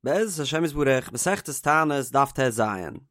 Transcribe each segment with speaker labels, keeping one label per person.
Speaker 1: בעזרת השם יתברך, מסכת תענית דף טז,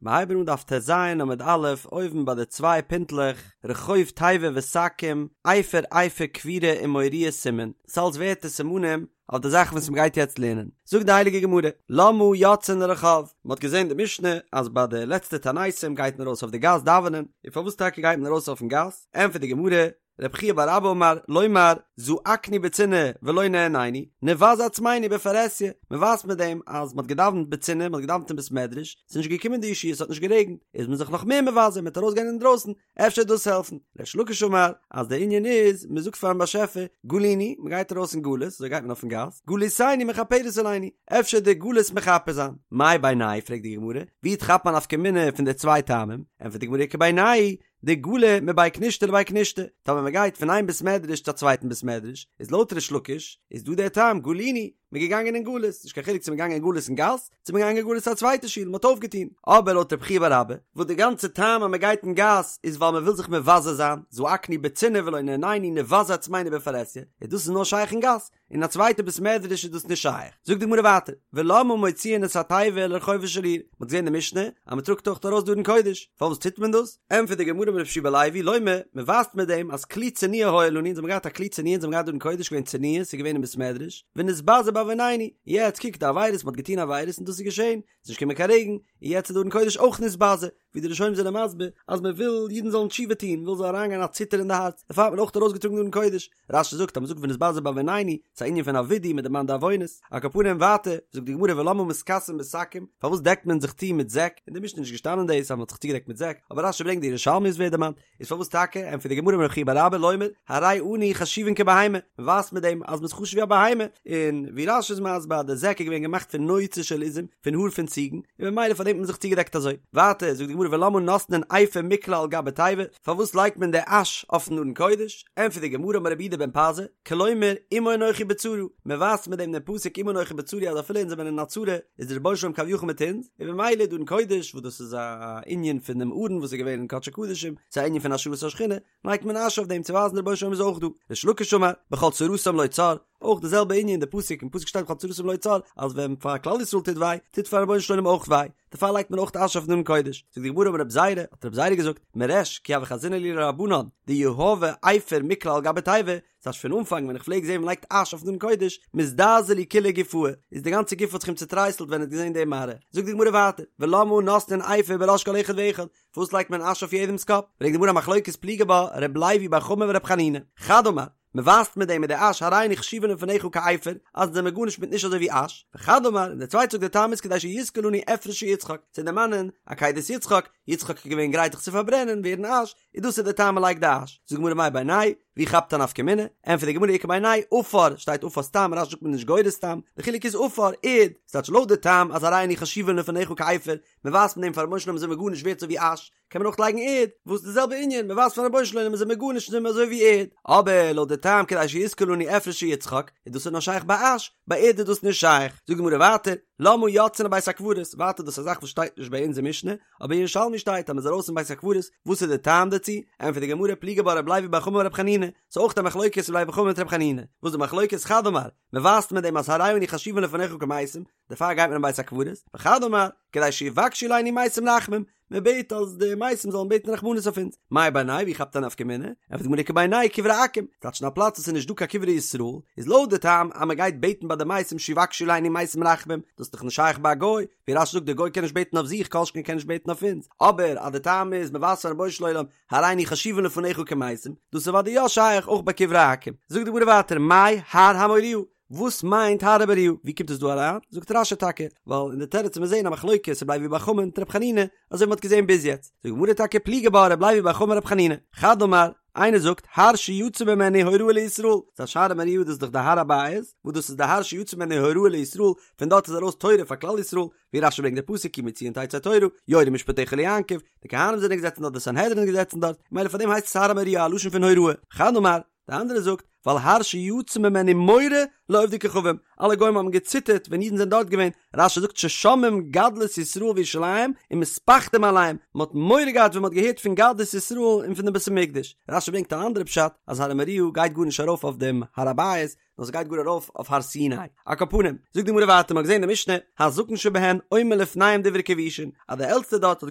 Speaker 1: מיר הייבן אן דף טז עמוד א', אויבן ביי די צוויי פינטלעך, רחוב תיבה ושקים, אפר אפר כפירה ומוריה סימן, ס'אלץ ווערטער סימנים אויף די זאכן וואס מ'גייט יעצט לערנען. זאגט די הייליגע גמרא, למה יוצאין לרחוב, מ'האט געזען די משנה אז ביי די לעצטע תעניתים גייט מען ארויס אויף די גאס דאווענען, און פארוואס טאקע גייט מען ארויס אויפן גאס? ענטפערט די גמרא, רב חייא בר אבא אמר, לומר, זעקנו בצנעה ולא נענינו, נבזה עצמנו בפרהסיא, מען ווייזט מיט דעם אז מען האט געדאווענט בצנעה, מען האט געדאווענט אין בית מדרש, ס'איז נישט געקומען די ישועה, ס'האט נישט גערעגנט, איז מען זיך נאך מער מבזה, מען וועט ארויסגיין אינדרויסן, אפשר וועט דאס העלפן. ריש לקיש אמר, אז דער ענין איז, מען זאגט פארן באשעפער, גלינו, מען גייט ארויס אין גלות, אזוי גייט מען אויפן גאס, גלותינו מכפרת עלינו, אפשר וועט די גלות מכפר זיין. מאי בינייהו פרעגט די גמרא, ווי כאפט מען א נפקא מינה פון די צוויי טעמים? ענטפערט די גמרא איכא בינייהו, דגלי מבי כנישתא לבי כנישתא, טאמער מען גייט פון איין בית מדרש צו א צווייטן בית מדרש, איז לויט ריש לקיש איז דא דער טעם גלינו, מען איז געגאנגען אין גלות, נישט קיין חילוק צו מען געגאנגען אין גלות אין גאס, צו מען געגאנגען אין גלות צו א צווייטע שול, מען האט אויפגעטון. אבער לויט רב חייא בר אבא, וואס די גאנצע טעם אז מען גייט אין גאס איז ווייל מען וויל זיך מבזה זיין, זעקנו בצנעה ולא נענינו נבזה עצמינו בפרהסיא, איז דאס איז נאר שייך אין גאס, אין א צווייטע בית מדרש איז דאס נישט שייך. זאגט די גמרא ווייטער, ולמה מוציאין את התיבה לרחובה של עיר, מען האט געזען אין די משנה אז מען טראגט אויך ארויס די ארון קודש, פארוואס טוט מען דאס? ענטפערט די גמרא אמר רבי יהושע בן לוי, לומר, מען ווייזט מיט דעם אז כלי צנועה היה לנו, אונז האבן געהאט א כלי צנועה, אונז האבן געהאט די ארון קודש געווען צנועה, ס'איז געווען אין בית מדרש, ונתבזה בעוונינו, יעצט קוק די עבירות, מען האט געטון עבירות און דאס איז געשען, ס'איז נישט געקומען קיין רעגן, און יעצט איז די ארון קודש אויך נתבזה, ווי די ראשונים זענען מסביר אז מען וויל אידן זאלן תשובה טון, מען וויל זאל אריינגיין א ציטער אין די הארץ, דערפאר האט מען אויך ארויסגעטראגן די ארון קודש. רש"י זאגט אז מען זאגט ונתבזה בעוונינו, ס'איז א ענין פון א ווידוי, מען דערמאנט די עוונות. על כל פנים ווייטער, זאגט די גמרא ולמה מתכסין בשקים, פארוואס דעקט מען זיך צו מיט זעק, אין די משנה איז נישט געשטאנען דאס אז מען האט זיך צוגעדעקט מיט זעק, אבער רש"י ברענגט די ירושלמי עס ווערט דערמאנט, איז פארוואס טאקע, ענטפערט די גמרא אמר רב חייא בר אבא לומר, הרי אנו חשובין כבהמה, מען ווייזט מיט דעם אז מען איז חשוב ווי א בהמה, און ווי רש"י איז מסביר אז די זעק איז געווען געמאכט פון נוצה של עזים, פון האר פון ציגן, און ממילא פאר דעם האט מען זיך צוגעדעקט אזוי. ווייטער זאגט די גמרא ולמה נותנין אפר מקלה על גבי תיבה, פארוואס לייגט מען די אש אויפן ארון קודש? ענטפערט די גמרא אמר רבי יהודה בן פזי, כלומר עמו אנכי בצרה, מען ווייזט מיט דעם דעם פסוק עמו אנכי בצרה אז אפילו אונז זעמיר אין א צרה איז דער רבונו של עולם כביכול מיט אונז, און ממילא די ארון קודש וואס דאס איז א ענין פון דעם ארון וואס איז געווען אין קדשי קדשים, ס'איז א ענין פון השראת השכינה, לייגט מען אש אויף דעם צו ווייזן דער רבונו של עולם איז אויך דא. ריש לקיש אמר, בכל צרתם לו צר, אויך די זעלבע ענין די פסוק אין פסוק שטייט בכל צרתם לו צר אז ווען פאר כלל ישראל טוט וויי טוט פארן רבונו של עולם אויך וויי דערפאר לייגט מען אויך אש אויפן ארון קודש זאגט די גמרא אמר רב זירא האט רב זירא געזאגט מריש כי הוה חזינא להו לרבנן דיהבי אפר מקלה על גבי תיבה ס'הייסט פון אנפאנג ווען איך פלעג זען מ'לייגט אש אויפן ארון קודש מזדעזע לי כוליה גופאי איז די גאנצע גוף האט זיך אים צוטרייסלט ווען ער האט געזען די מראה זאגט די גמרא ווייטער ולמה נותנין אפר בראש כל אחד ואחד פארוואס לייגט מען אש אויף יעדעמ'ס קאפ ברענגט די גמרא א מחלוקת פליגי בה ר' לוי בר חמא ור' חנינא חד אמר מען ווייזט מיט דעם מיט די אש הרי אנו חשובין לפניך כעפר, אז אונז זעמיר גארנישט מיט נישט אזוי ווי אש, וחד אמר, און דער צווייטער זאגט דער טעם איז כדי שיזכור לנו אפרו של יצחק, צו דערמאנען עקידת יצחק, יצחק איז געווען גרייט זיך צו פארברענען, ווערן אש, און דאס איז דער טעם מען לייגט די אש. זאגט די גמרא מאי בינייהו, ווי כאפט א נפקא מינה? ענטפערט די גמרא איכא בינייהו עפר, שטייט עפר סתם, רש"י זאגט מען נישט גורס סתם, די חילוק איז עפר, ערד, ס'טייטש לויט די טעם אז הרי אנו חשובין לפניך כעפר, מען ווייזט מיט דעם פארן רבונו של עולם זעמיר גארנישט ווערט אזוי ווי אש, קען מען אויך לייגן ערד, וואס די זעלבע ענין, מען ווייזט פארן רבונו של עולם מיר זעמיר גארנישט זעמיר אזוי ווי ערד, אבער לויט די טעם כדי שיזכור לנו אפרו של יצחק, איז דאס איז נאר שייך ביי אש, ביי ערד איז דאס נישט שייך. זאגט די גמרא ווייטער, למה יוצאין לבית הקברות, ווייטער דאס איז א זאך וואס שטייט נישט ביי אונז אין משנה, אבער אין ירושלמי שטייט אז מען איז ארויס אין בית הקברות, וואס איז די טעם דערצו? ענטפערט די גמרא פליגי בה רב לוי בר חמא ורב חנינא, ס'איז אויך א מחלוקת רב לוי בר חמא מיט רב חנינא, וואס איז די מחלוקת? חד אמר, מען ווייזט מיט דעם אז הרי אנו חשובין לפניך כמתים, דערפאר גייט מען אין בית הקברות, וחד אמר, כדי שיבקשו עלינו מתים רחמים, מען בעט אז די מתים זאלן בעטן רחמנות אויף אונז, מאי בינייהו ווי כאפט א נפקא מינה? ענטפערט די גמרא איכא בינייהו קברי עכו"ם, ס'טייטש אין א פלאץ וואס איז נישט דא קיין קברי ישראל, איז לויט די טעם אז מען גייט בעטן ביי די מתים שיבקשו עלינו מתים רחמים, דאס איז דאך נישט שייך ביי א גוי, ווי רש"י זאגט די גוי קען נישט בעטן אויף זיך כל שכן קען נישט בעטן אויף אונז, אבער אז די טעם איז מען ווייזט פארן רבונו של עולם הרי אנו חשובין לפניך כמתים, דאס איז אוודאי יא שייך אויך ביי קברי עכו"ם. זאגט די גמרא ווייטער מאי הר המוריה, וואס מיינט הר המוריה? ווי קומט עס דא אריין? זאגט רש"י טאקע, ווייל אין די תירוץ וועט מען זעהן א מחלוקת רבי לוי בר חמא מיט רבי חנינא, אזוי ווי מ'האט געזעהן ביז יעצט. זאגט די גמרא טאקע פליגי בה רבי לוי בר חמא ורבי חנינא. חד אמר, איינער זאגט, הר שיצא ממנו הוראה לישראל, ס'טייטש הר המוריה דאס איז דאך די הר הבית, וואס דאס איז די הר שיצא ממנו הוראה לישראל, פון דארט איז ארויס תורה פאר כלל ישראל, ווי רש"י ברענגט די פסוק כי מציון תצא תורה, יורו משפטיך ליעקב, די כהנים זענען געזעצן דארט, די סנהדרין איז געזעצן דארט, ממילא פאר דעם הייסט עס הר המוריה א לשון פון הוראה. חד אמר, די אנדערע זאגט, ווייל הר שיצא ממנו מורא לעובדי כוכבים, אלע גוים האבן געציטערט ווען אידן זענען דארט געווען, רש"י זאגט ששומעים גדלות ישראל וירושלים ומתפחדים עליהם, מען האט מורא געהאט ווען מען האט געהערט פון גדלות ישראל און פון דעם בית המקדש, רש"י ברענגט אן אנדערע פשט אז הר המוריה גייט גארנישט ארויף אויף דעם הר הבית, נאר ס'גייט גאר ארויף אויף הר סיני. על כל פנים, זאגט די גמרא ווייטער, מ'האט געזען אין די משנה, הזקן שבהן אומר לפניהם דברי כיבושין, אז דער עלטסטער דארט האט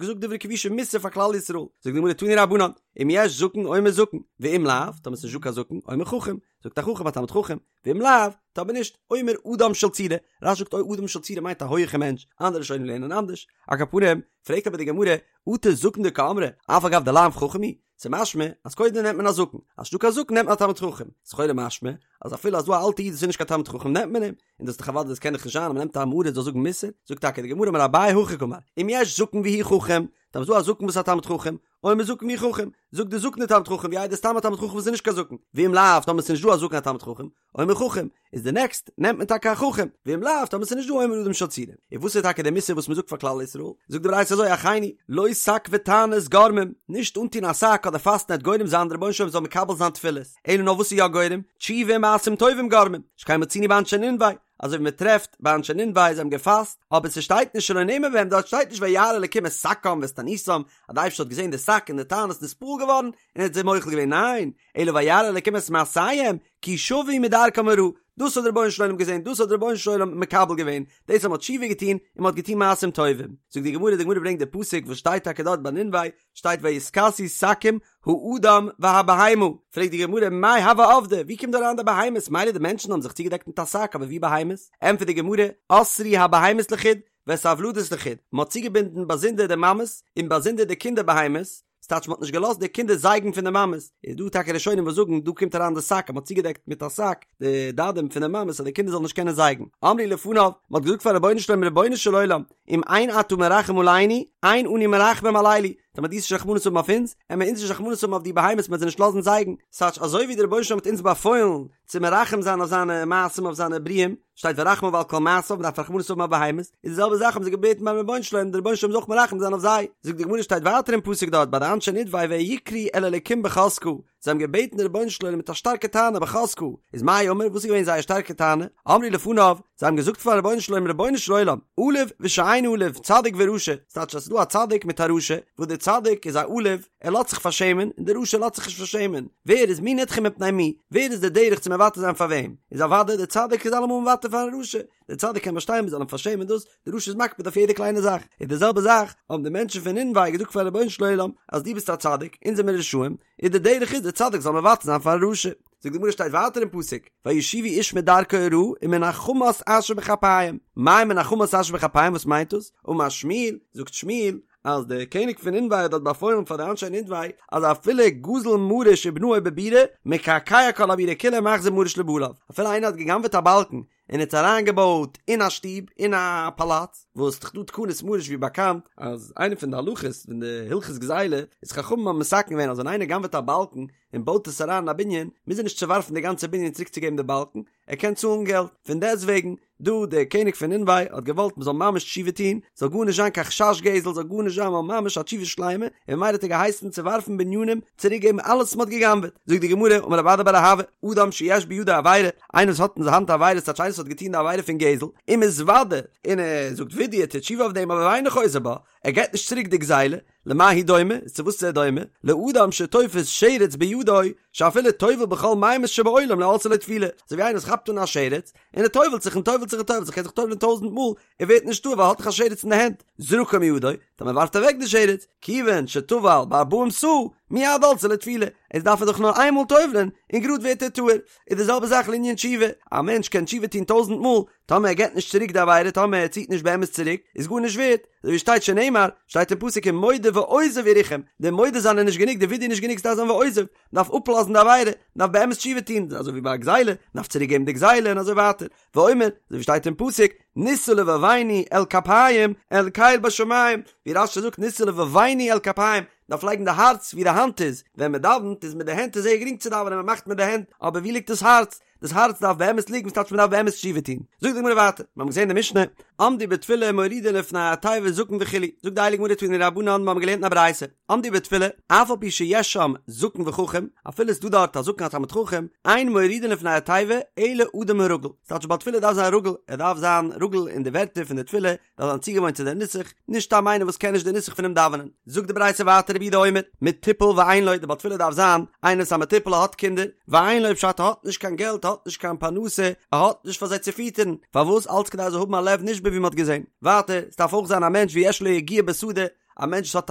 Speaker 1: געזאגט דברי כיבושין מוסר פאר כלל ישראל, זאגט די גמרא תנו רבנן, אם יש זקן אומר זקן, ואם לאו, טאמער ס'נישט דא קיין זקן, אומר חכם, זאגט א חכם א תלמיד חכם, ואם לאו, טאמער נישט, אומר אדם של צורה, רש"י זאגט אוי אדם של צורה מיינט א הויעכע מענטש, אנדערע ראשונים לערנען אנדערש, על כל פנים, פרעגט אבער די גמרא, אטו זקן דקאמרי, אף על גב דלאו חכם הוא, ס'איז משמע אז קודם נעמט מען א זקן, אז ס'נישטא קיין זקן נעמט מען א תלמיד חכם, איז לכאורה משמע אז אפילו אז דא א אלטע איד וואס איז נישט קיין תלמיד חכם נעמט מען אים, און דאס איז דאך אוודאי דאס קען דאך נישט זיין אז מ'נעמט א עם הארץ זאל זאגן מוסר, זאגט טאקע די גמרא אמר אביי הכי קאמר, אם יש זקן והוא חכם, טאמער ס'דא א זקן וואס איז א תלמיד חכם, אומר זקן והוא חכם, זאגט די זקן די תלמיד חכם ווי איידער סתם א תלמיד חכם וואס איז נישט קיין זקן, ואם לאו טאמער ס'איז נישט דא א זקן א תלמיד חכם, אומר חכם, איז די נעקסט נעמט מען טאקע א חכם, ואם לאו טאמער ס'איז נישט דא אומר אדם של צורה. און וואס איז טאקע די מוסר וואס מ'זאגט פאר כלל ישראל? זאגט די ברייתא אזוי אחינו, לא שק ותענית גורמים, נישט אנטון א שק אדער פאסטן וועט גורם זיין די רבונו של עולם זאל מקבל זיין תפילות, אלא נאר וואס איז יא גורם? תשובה ומעשים טובים גורמים, שכן מצינו באנשי נינווה, אזוי ווי מ'טרעפט ביי אנשי נינווה זיי האבן געפאסט, אבער ס'שטייט נישט שלא נאמר בהם, דארט שטייט נישט וירא אלקים את שקם ואת תעניתם, אז די אייבערשטער האט געזען די שק און די תענית נתפעל געווארן און ער האט זיי מוחל געווען, ניין, אלא וירא אלקים את מעשיהם, כי שבו מדרכם הרעה, דאס האט דער רבונו של עולם געזען, דאס האט דער רבונו של עולם מקבל געווען, דאס אז מען האט תשובה געטון און מען האט געטון מעשים טובים. זאגט די גמרא, די גמרא ברענגט די פסוק וואס שטייט טאקע דארט ביי נינווה, שטייט ויתכסו שקים האדם והבהמה, פרעגט די גמרא מאי הוו עבדי, ווי קומט דא אריין די בהמות, מילא די מענטשן האבן זיך צוגעדעקט מיט א שק, אבער ווי בהמות? ענטפערט די גמרא, אסרו הבהמות לחוד, ואת הוולדות לחוד, מען האט צוגעבינדן באזונדער די מאמעס און באזונדער די קינדער בהמות, ס'טייטש מ'האט נישט געלאזט די קינדער זייגן פון די מאמעס, איז דא טאקע ראשונים וואס זאגן דא קומט אריין די שק אז מ'האט צוגעדעקט מיט א שק די דדים פון די מאמעס אז די קינדער זאלן נישט קענען זייגן, אמרו לפניו, מ'האט געזאגט פארן רבונו של עולם רבונו של עולם, אם אין אתה מרחם עלינו, אין אנו מרחמים על אלו, טאמער דו וועסט נישט רחמנות האבן אויף אונז, עמער אונז נישט רחמנות האבן אויף די בהמות מ'וועט זיי נישט לאזן זייגן, ס'טייטש אזוי ווי די רבונו של עולם האט אונז באפוילן צו מרחם זיין אויף זיינע מעשים אויף זיינע בריאים, שטייט ורחמיו על כל מעשיו, מ'דארף רחמנות האבן אויף בהמות, איז די זעלבע זאך האבן זיי געבעטן ביים רבונו של עולם, דער רבונו של עולם זאל אויך מרחם זיין אויף זיי. זאגט די גמרא שטייט ווייטער אין פסוק דארט ביי די אנשי נינווה ויקראו אל האלקים בחזקה, זיי האבן געבעטן דער רבונו של עולם מיט א שטארקע טענה בחזקה, איז מאי אמור וואס איז געווען זייער שטארקע טענה? אמרו לפניו, זיי האבן געזאגט פארן רבונו של עולם רבונו של עולם, עלוב ושאינו עלוב, צדיק ורשע, ס'טייטש אז ס'איז דא א צדיק מיט א רשע, וואס דער צדיק איז א עלוב, ער לאזט זיך פארשעמען און דער רשע לאזט זיך נישט פארשעמען, ווער איז מי נדחה מפני מי, ווער איז דער דרך צו מוותר זיין פאר וועם, איז אוודאי דער צדיק איז אלעמאל מוותר פארן רשע, דער צדיק קען באשטיין מען זאל אים פארשעמען דאס, דער רשע איז מקפיד אויף יעדע קליינע זאך, איז די זעלבע זאך האבן די מענטשן פון נינווה געזאגט פארן רבונו של עולם אז דו ביסט א צדיק, אונז זעמיר רשעים, איז דער דרך איז דער צדיק זאל מוותר זיין פארן רשע. זאגט די גמרא שטייט ווייטער אין פסוק, וישובו איש מדרכו הרעה ומן החמס אשר בכפיהם, מאי מן החמס אשר בכפיהם וואס מיינט דאס? אמר שמואל, זאגט שמואל, אז דער קעניג פון נינווה האט דארט באפוילן פאר די אנשי נינווה אז אפילו גזל מריש ובנאו בבירה מקעקע כל הבירה כולה ומחזיר מריש לבעליו, אפילו איינער האט גע'גנב'עט א באלקן און האט אריינגעבויט אין א שטוב אין א פאלאץ, וואס ס'דאך דא תקנות מריש ווי באקאנט אז איינע פון די הלכות פון די הלכות גזילה איז חכמים האבן מתקן געווען אז ווען איינער גנב'עט א באלקן און בויט עס אריין אין א בנין מוז ער נישט צעווארפן די גאנצע בנין צוריק צו געבן די באלקן, ער קען צאלן געלט, פון דעסט וועגן, דא דער קעניג פון נינווה האט געוואלט מען זאל ממש תשובה טון, זאל גארנישט זיין קיין חשש גזל, זאל גארנישט זיין נאר ממש א תשובה שלימה, און ממילא האט ער געהייסן צעווארפן בנינים, צוריק געבן אלעס וואס מען האט גע'גנב'עט. זאגט די גמרא, אמר רב אדא בר אהבה, אדם שיש בידו עבירה, איינער וואס האט אין זיין האנט א עבירה, ס'טייטש איינער וואס האט געטון די עבירה פון גזל, ומתוודה, און ער זאגט וידוי, ער טוט תשובה אויף דעם, אבער ואינו חוזר בה, ער געבט נישט צוריק די גזילה, למה הוא דומה, איז צו וואס איז ער דומה? לאדם שתופס שרץ בידו, שאפילו טובל בכל מימות שבעולם לא עלתה לו טבילה, אזוי ווי איינער וואס כאפט אן א שרץ, און ער טובל'ט זיך און טובל'ט זיך און טובל'ט זיך, ער קען זיך טובל'ען טויזענט מאל, ער ווערט נישט טהור ווייל ער האט דאך א שרץ אין די הענט, זרקו מידו, טאמער ווארפט ער אוועק די שרץ, כיוון שטבל בארבעים סאה, מיד עלתה לו טבילה, איז דארף ער דאך נאר איין מאל טובל'ען, און גראד ווערט ער טהור. איז די זעלבע זאך לענין תשובה, א מענטש קען תשובה טון טויזענט מאל, טאמער ער געבט נישט צוריק די עבירה, טאמער ער ציט נישט באמת צוריק, איז גארנישט ווערט, אזוי ווי שטייט שנאמר, שטייט אין פסוק ומודה ועוזב ירוחם, די מודה זיין איז נישט גענוג, די וידוי איז נישט גענוג, ס'דארף זיין ועוזב, מ'דארף אפלאזן די עבירה, מ'דארף באמת תשובה טון, אזוי ווי ביי א גזילה, מ'דארף צוריק געבן די גזילה און אזוי ווייטער, ואומר, אזוי ווי שטייט אין פסוק, נשא לבבנו אל כפים, אל קל בשמים, ווי רש"י זאגט נשא לבבנו אל כפים, מ'דארף לייגן די הארץ ווי די האנט איז, ווען מ'דאווענט איז מיט די הענט איז זייער גרינג צו דאווענען מ'מאכט מיט די הענט, אבער ווי ליגט דאס הארץ? דאס הארץ דארף באמת ליגן, וואס טייטש מען דארף באמת תשובה טון? זאגט די גמרא ווייטער, מיר האבן געזען אין די משנה, עמדו בתפילה מורידין לפני התיבה זקן וכו', זאגט די הייליגע גמרא תנו רבנן, מיר האבן געלערנט אין א ברייתא, עמדו בתפילה, אף על פי שיש שם זקן וחכם, אפילו ס'איז דא דארט א זקן א תלמיד חכם, אין מורידין לפני התיבה אלא אדם הרגיל, ס'טייטש בעל תפילה דארף זיין רגיל, ער דארף זיין רגיל אין די ווערטער פון די תפילה, דארף זיין צוגעוואוינט צו די נוסח, נישט סתם איינער וואס קען נישט די נוסח פונעם דאווענען. זאגט די ברייתא ווייטער רבי יהודה אומר, מטופל ואין לו, די בעל תפילה דארף זיין איינער וואס איז א מטופל ער האט קינדער, ואין לו פשט ער האט נישט קיין געלט ער האט נישט קיין פרנסה, ער האט נישט פאר זיי צו פיטערן, פארוואס אלץ כדי ער זאל האבן א לב נשבר ווי מען האט געזען. ווייטער, עס דארף אויך זיין א מענטש ויש לו יגיעה בשדה, א מענטש וואס האט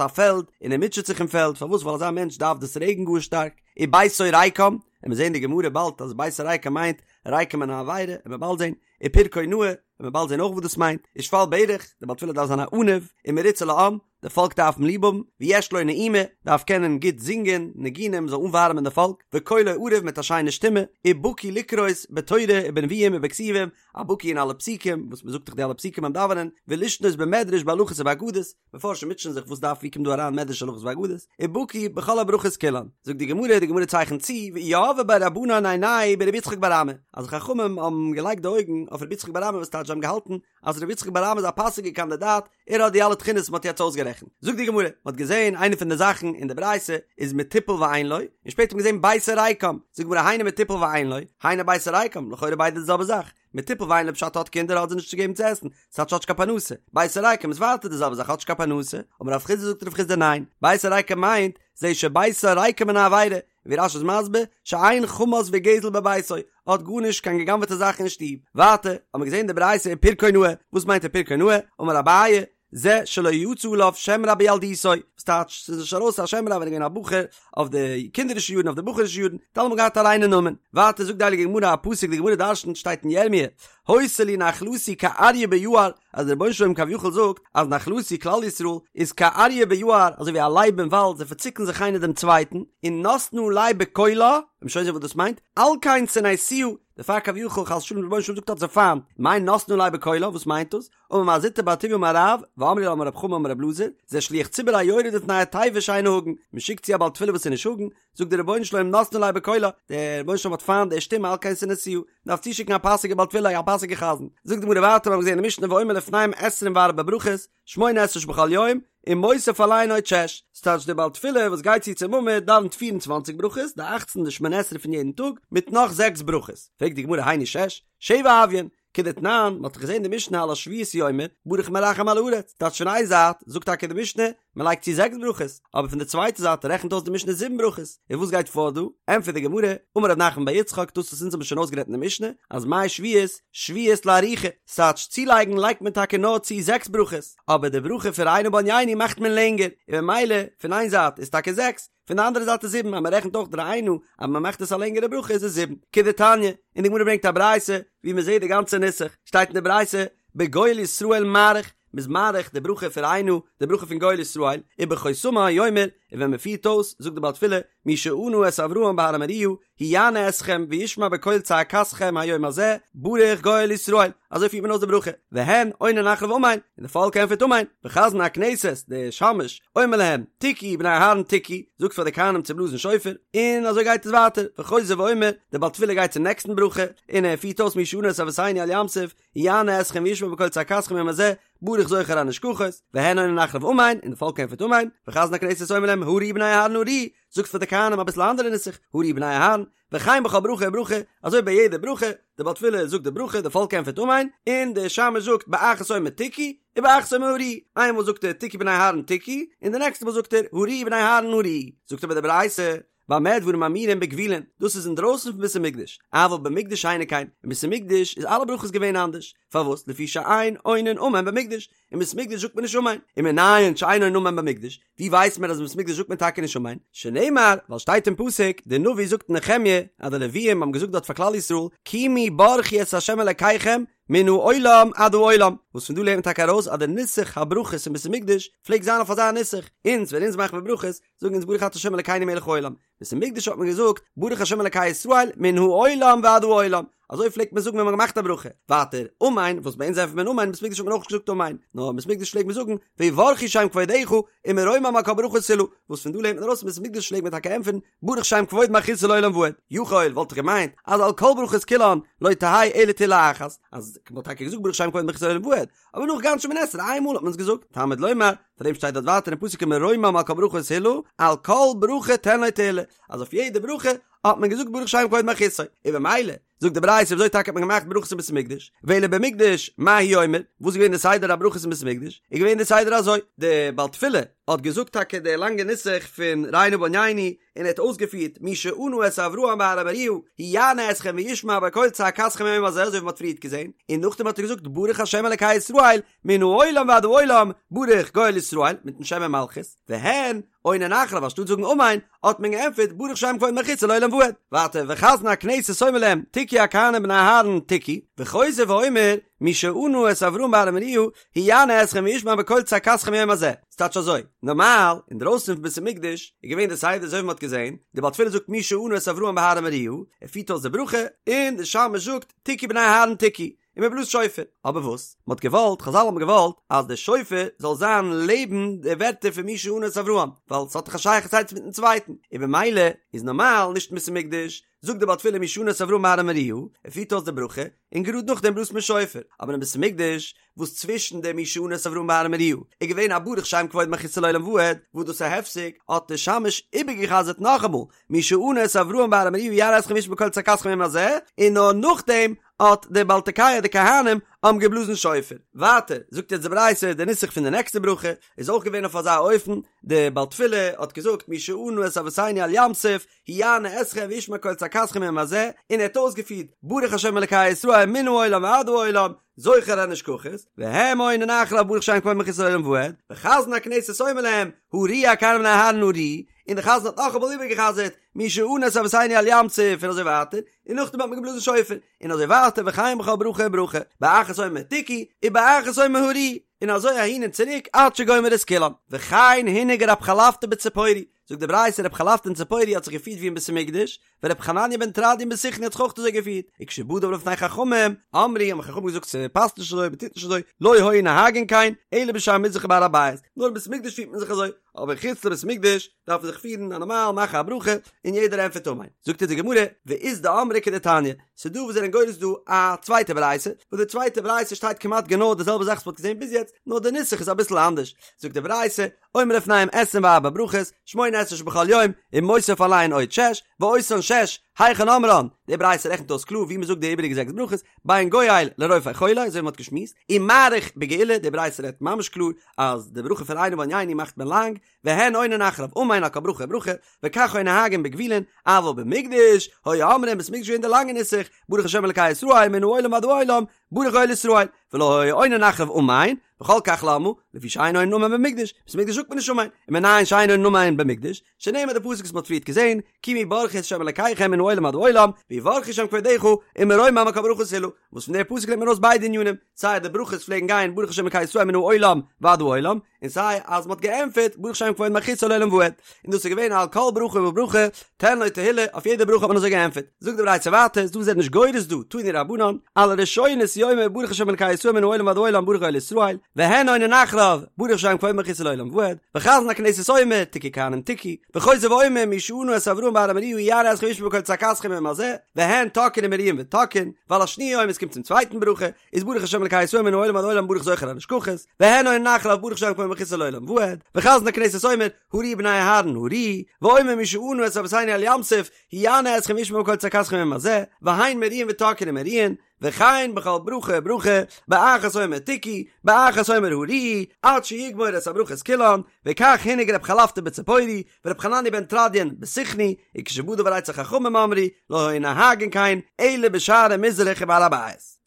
Speaker 1: א פעלד און ער מוטשעט זיך אין פעלד, פארוואס ווייל אזא מענטש דארף דאס רעגן גאר שטארק, וביתו ריקם, און מיר זעהן אין די גמרא באלד אז ביתו ריקם מיינט ריקם מן העבירה, און מ'וועט באלד זעהן, ופרקו נאה, און מ'וועט באלד זעהן אויך וואס דאס מיינט, ושפל ברך, דער בעל תפילה דארף זיין א עניו, ומרוצה לעם, די פאלק דארף אים ליב האבן, ויש לו נעימה, דארף קענען גוט זינגען ניגונים זאל אנווארעמען די פאלק, וקולו ערב מיט א שיינע שטימע, ובקי לקרות בתורה ובנביאים ובכתובים, א בקי אין אלע פסוקים, וואס מ'זאגט דאך די אלע פסוקים ביים דאווענען, ולשנות במדרש בהלכות ובאגדות, מפרשים מוטשען זיך וואס דארף ווי קומט דא אריין מדרש הלכות ואגדות, ובקי בכל הברכות כולן. זאגט די גמרא, די גמרא צייכנט צו, ויהבו ביה רבנן עינייהו ברבי יצחק בר אמי, אז די חכמים האבן געלייגט די אויגן אויף רבי יצחק בר אמי וואס טייטש זיי האבן געהאלטן אז רבי יצחק בר אמי איז א פאסיגע קאנדידאט, ער האט די אלע תכונות וואס מ'האט יעצט אויסגערעכנט. זאגט די גמרא, מ'האט געזען איינע פון די זאכן אין די ברייתא איז מטופל ואין לו, און שפעטער האט מען געזען ביתו ריקם, זאגט די גמרא היינו מטופל ואין לו, היינו ביתו ריקם, לכאורה ביידע די זעלבע זאך, מטופל ואין לו פשט האט קינדער האט זיי נישט צו געבן צו עסן, ס'טייטש האט נישט קיין פרנסה, ביתו ריקם איז ווייטער די זעלבע זאך האט נישט קיין פרנסה, אמר רב חסדא זאגט רב חסדא ניין, ביתו ריקם מיינט, זה שביתו ריקם מן העבירה, ווי רש"י איז מסביר, שאין חמס וגזל בביתו, האט גארנישט קיין גע'גנב'עטע זאכן אין שטוב. ווייטער האט מען געזען די ברייתא ופרקו נאה, וואס מיינט ופרקו נאה? אמר אביי, זה שלא יצא עליו שם רע בילדותו, וואס טייטש ס'איז נישט ארויס א שם רע ווען ער איז געווען א בחור, אויף די קינדערישע יארן אויף די בחור'ישע יארן, האט אלעמאל געהאט א ריינע נאמען. ווייטער זאגט די הייליגע גמרא א פסוק, די גמרא דרשנ'ט שטייט אין ירמיה, היתה לי נחלתי כאריה ביער, אז דער רבונו של עולם כביכול זאגט אז נחלתי כלל ישראל איז כאריה ביער, אזוי ווי א לייב אין וואלד, זיי פארציקן זיך איינער דעם צווייטן, און נתנה עלי בקולה, מ'וועט שוין זען וואס דאס מיינט, על כן שנאתיה, דערפאר כביכול חס ושלום דער רבונו של עולם זאגט האט זיי פיינט, מאי נתנה עלי בקולה, וואס מיינט דאס? אמר מר זוטרא בר טוביה אמר רב, ואמרי לה אמר רב חמא אמר רב אלעזר, זה שליח ציבור היורד לפני התיבה שאינו הגון, מען שיקט צו א בעל תפילה וואס איז נישט הגון, זאגט דער רבונו של עולם נתנה עלי בקולה, דער רבונו של עולם האט פיינט די שטימע על כן שנאתיה, מען דארף צושיקן א פאסיגע בעל תפילה א פאסיגע חזן, זאגט די גמרא ווייטער מיר האבן געזען אין משנה ואומר לפניהם עשרים וארבע ברכות, שמונה עשרה שבכל יום, ומוסיף עליהן עוד שש, ס'טייטש דער בעל תפילה וואס גייט צו צום עמוד דאווענט פיר און צוואנציג ברכות, די אכצן די שמונה עשרה פון יעדן טאג, מיט נאך זעקס ברכות, פרעגט די גמרא היינו שש, שבע הוויין, כדתנן, מ'האט דאך געזען די משנה על השביעית הוא אומר, ברוך מרחם על הארץ, טייטש פון איין זייט זאגט טאקע די משנה, מען לייגט צו זעקס ברכות, אבער פון די צווייטע זייט רעכנט אויס די משנה זיבן ברכות, און וואס גייט פאר דא? ענטפערט די גמרא, אמר רב נחמן בר יצחק, דאס וואס אונז האבן שוין אויסגערעדט אין די משנה, אז מאי שביעית, שביעית לארוכה, ס'טייטש צולייגן לייגט מען טאקע נאר צו זעקס ברכות, אבער די ברכה פון ראה נא בעניינו מאכט מען לענגער, און ממילא פון איין זייט איז טאקע זעקס, פון די אנדערע זייט איז זיבן, אז מען רעכנט אויך די ראה נא אז מען מאכט עס א לענגערע ברכה איז עס זיבן. כדתניא, און די גמרא ברענגט א ברייתא ווי מען זעט די גאנצע נוסח, שטייט אין די ברייתא, בגואל ישראל מאריך, מען איז מאריך די ברכה פון ראה נא, די ברכה פון גואל ישראל, ובחותמה הוא אומר, און ווען מען פירט אויס, זאגט די בעל תפילה, מי שענה את אברהם בהר המוריה, הוא יענה אתכם וישמע בקול צעקתכם היום הזה, ברוך גואל ישראל, אזוי פירט מען אויס די ברכה, והן עונין אחריו אמן, און די פאלק ענטפערט אמן, וחזן הכנסת, די שמש, אומר להם, תקעו בני אהרן תקעו, זאגט פאר די כהנים צו בלאזן שופר, און אזוי גייט עס ווייטער, וחוזר ואומר, דער בעל תפילה גייט צום נעקסטן ברכה, און ער פירט אויס מי שענה את אבותינו על ים סוף, הוא יענה אתכם וישמע בקול צעקתכם היום הזה, ברוך זוכר הנשכחות, והן עונין אחריו אמן, און די פאלק ענטפערט אמן, וחזן הכנסת אומר להם, הריעו בני אהרן הריעו, זאגט פאר די כהנים אביסל א אנדערע נוסח, הריעו בני אהרן, וכן בכל ברכה וברכה, אזוי ביי יעדע ברכה, דער בעל תפילה זאגט די ברכה, די פאלק ענטפערט אמן, און דער שמש זאגט באחת אומר תקעו, ובאחת אומר הריעו, איינמאל זאגט ער תקעו בני אהרן תקעו, און די נעקסטע מאל זאגט ער הריעו בני אהרן הריעו, זאגט אבער די ברייתא, במה דברים אמורים בגבולין, דאס איז אינדרויסן פון בית המקדש, אבל במקדש אינו כן, אין בית המקדש איז אלע ברכות געווען אנדערש, פארוואס? לפי שאין עונין אמן במקדש, אין בית המקדש זאגט מען נישט אמן, ומנין שאין עונין אמן במקדש, ווי ווייסט מען אז אין בית המקדש זאגט מען טאקע נישט אמן? שנאמר, ווייל שטייט אין פסוק, דער נביא זאגט אין נחמיה, אז די לוויים האבן געזאגט דארט פאר כלל ישראל, קומו ברכו את ה' אלקיכם, מן העולם עד העולם, וואס פון דא לערנט מען טאקע ארויס אז דער נוסח הברכות אין בית המקדש פלעגט זיין אויף אזא נוסח, אונז ווען אונז מאכן מיר ברכות, זאגן אונז ברוך אתה ה' אלקינו מלך העולם, בית המקדש האט מען געזאגט ברוך ה' אלקי ישראל מן העולם ועד העולם, אזוי פלעגט מען זאגן ווען מען האט געמאכט א ברכה. ווייטער, אמן, וואס ביי אונז ענטפערט מען אמן, אין בית המקדש האט מען אויך נישט געזאגט אמן, נאר אין בית המקדש פלעגט מען זאגן ויברכו שם כבודך ומרומם על כל ברכה תהלה, וואס פון דא לערנט מען ארויס אין בית המקדש פלעגט מען טאקע ענטפערן ברוך שם כבוד מלכותו לעולם ועד. יכול וואלט איך געמיינט אז על כל ברכות כולן לא תהא אלא תהלה אחת, אז מען האט טאקע געזאגט ברוך שם כבוד מלכותו לעולם ועד, אבער נאך גאנץ שמונה עשרה איין מאל האט מען עס געזאגט, תלמוד לומר, פאר דעם שטייט דארט ווייטער אין פסוק ומרומם על כל ברכה תהלה, על כל ברכה תן לו תהלה, אז אויף יעדע ברכה האט מען געזאגט ברוך שם כבוד מלכותו, און במילא זאגט די ברייתא וויאזוי טאקע האט מען געמאכט ברכות אין בית המקדש, ואלא במקדש מה הוא אומר, וואס איז געווען די סדר הברכות אין בית המקדש, איז געווען די סדר אזוי, די בעל תפילה האט געזאגט טאקע די לאנגע נוסח פון ראה נא בענינו, און ער האט אויסגעפירט מי שענה את אברהם בהר המוריה הוא יענה אתכם וישמע בקול צעקתכם היום הזה אזוי ווי מען האט פריערט געזען, און נאכדעם האט ער געזאגט ברוך השם אלקי ישראל מן העולם ועד העולם ברוך גואל ישראל מיטן שם ומלכות, והן עונין אחריו אנשטאט זאגן אמן האט מען געענטפערט ברוך שם כבוד מלכותו לעולם ועד, ווייטער וחזן הכנסת אומר להם תקעו הכהנים בני אהרן תקעו, וחוזר ואומר מי שענה את אברהם בהר המוריה הוא יענה אתכם וישמע בקול צעקתכם היום הזה, ס'טייטש אזוי, נארמאל, אינדרויסן פון בית המקדש, איז געווען די סדר אזוי ווי מ'האט געזען, די בעל תפילה זאגט מי שענה את אברהם בהר המוריה, ער פירט אויס די ברכה, און די שמש זאגט תקעו בני אהרן תקעו, און מ'בלאזט שופר. אבער וואס? מ'האט געוואלט, חזל האבן געוואלט, אז די שופר זאל זיין לעבן די ווערטער פון מי שענה את אברהם, ווייל ס'האט דאך א שייכות איינס מיטן צווייטן, און במילא איז נארמאל נישט אין בית המקדש, זאגט די בעל תפילה מי שענה את אברהם בהר המוריה, ער פירט אויס די ברכה, און גראד נאכדעם בלאזט מען שופר, אבער אין בית המקדש, וואס צווישן דעם מי שענה את אברהם בהר המוריה איז געווען א ברוך שם כבוד מלכותו לעולם ועד, וואס דאס איז א הפסק, האט דער שמש איבערגעחזרט נאכאמאל, מי שענה את אברהם בהר המוריה הוא יענה אתכם וישמע בקול צעקתכם היום הזה, און נאר נאכדעם האט דער בעל תוקע די כהנים האבן געבלאזן שופר. ווייטער זאגט יעצט די ברייתא די נוסח פון די נעקסטע ברכה איז אויך געווען אויף אזא אופן, דער בעל תפילה האט געזאגט מי שענה את אבותינו על ים סוף, הוא יענה אתכם וישמע קול צעקתכם היום הזה, און ער האט אויסגעפירט ברוך השם אלקי ישראל מן העולם ועד העולם, זוכר הנשכחות, והם עונין אחריו ברוך שם כבוד מלכותו לעולם ועד, וחזן הכנסת אומר להם, הריעו הכהנים בני אהרן הריעו, און דער חזן האט נאכאמאל איבערגעחזרט, מי שענה את אבותינו על ים סוף און אזוי ווייטער, און נאכדעם האט מען געבלאזן שופר, און אזוי ווייטער וכן בכל ברכה וברכה, באחת אומר תקעו, ובאחת אומר הריעו, און אזוי אהין און צוריק עד שגומר את כולם. וכן הנהיג רב חלפתא בציפורי, זאגט די ברייתא רב חלפתא אין ציפורי האט זיך געפירט ווי אין בית המקדש, ורב חנניה בן תרדיון בסיכני האט זיך אויך אזוי געפירט, וכשבא דבר לפני חכמים, אמרו האבן חכמים געזאגט ס'פאסט נישט אזוי מ'טוט נישט אזוי, לא היו נוהגין כן, אלא בשער מזרח ובהר הבית, נאר אין בית המקדש פירט מען זיך אזוי, אבער חוץ לבית המקדש דארף מען זיך פירן א נארמאל מאכן א ברכה און יעדער ענטפערט אמן. זאגט אונז די גמרא, ואית דאמרי כדתניא, ס'דא וואס זענען גורס דא א צווייטע ברייתא, וואס די צווייטע ברייתא שטייט כמעט גענוי די זעלבע זאך וואס מ'האט געזען ביז יעצט, נאר די נוסח איז אביסל אנדערש, זאגט די ברייתא, אומר לפניהם עשרים וארבע ברכות, שמונה עשרה שבכל יום, ומוסיף עליהן עוד שש, ואותן שש, היכן אומרן, די ברייתא רעכנט אויס קלאר ווי מ'זאגט די איבעריגע זעקס ברכות, בין גואל לרופא חולה, אזוי ווי מ'האט געשמועסט, ומאריך בגאולה, די ברייתא רעדט ממש קלאר אז די ברכה פון ראה נא בענינו מאכט מען לאנג, והן עונין אחריו אמן על כל ברכה וברכה, וכך היו נוהגין בגבולין, אבל במקדש, היו אומרים בית המקדש געווען די לאנגע נוסח, ברוך השם אלקי ישראל מן העולם ועד העולם, ברוך גואל ישראל, ולא היו עונין אחריו אמן, וכל כך למה, לפי שאין עונין אמן במקדש, בית המקדש זאגט מען נישט אמן, ומנין שאין עונין אמן במקדש, שנאמר די פסוק וואס מען האט פריערט געזען, קומו ברכו את ה' אלקיכם מן העולם עד העולם, ויברכו שם כבודך, ומרומם על כל ברכה תהלה, וואס פון די פסוק לערנט מען ארויס ביידע ענינים, סיי די ברכות פלעגן גיין ברוך השם אלקי ישראל מן העולם ועד העולם, און סיי אז מ'האט געענטפערט ברוך שם כבוד מלכותו לעולם ועד, און דאס איז געווען על כל ברכה וברכה תן לו תהילה, אויף יעדע ברכה האט מען אזוי געענטפערט. זאגט די ברייתא ווייטער, איז דא וואס זענען נישט גורס דא, תנו רבנן, על הראשונות הוא אומר ברוך השם אלקי ישראל מן העולם ועד העולם ברוך גואל ישראל, והן עונין אחריו ברוך שם כבוד מלכותו לעולם ועד, וחזן הכנסת אומר תקעו כהנים תקעו, וחוזר ואומר מי שענה את אברהם בהר המוריה הוא יענה אתכם וישמע בקול צעקתכם היום הזה, והן תוקעין ומריעין ותוקעין, ועל השניה הוא אומר עס קומט צום צווייטן ברכה, איז ברוך השם אלקי ישראל מן העולם ועד העולם ברוך זוכר הנשכחות, והן עונין אחריו ברוך שם כבוד מלכותו לעולם ועד, וחזן הכנסת אומר, הריעו בני אהרן הריעו, ואומר מי שענה את אבותינו על ים סוף, הוא יענה אתכם וישמע בקול צעקתכם היום הזה, והן מריעין ותוקעין ומריעין, וכן בכל ברכה וברכה, באחת אומר תקעו, באחת אומר הריעו, עד שיגמור את הברכות כולן, וכך הנהיג רב חלפתא בציפורי, ורב חנניה בן תרדיון בסיכני, וכשבא דבר אצל חכמים אמרו, לא היו נוהגין כן, אלא בשערי מזרח ובהר הבית.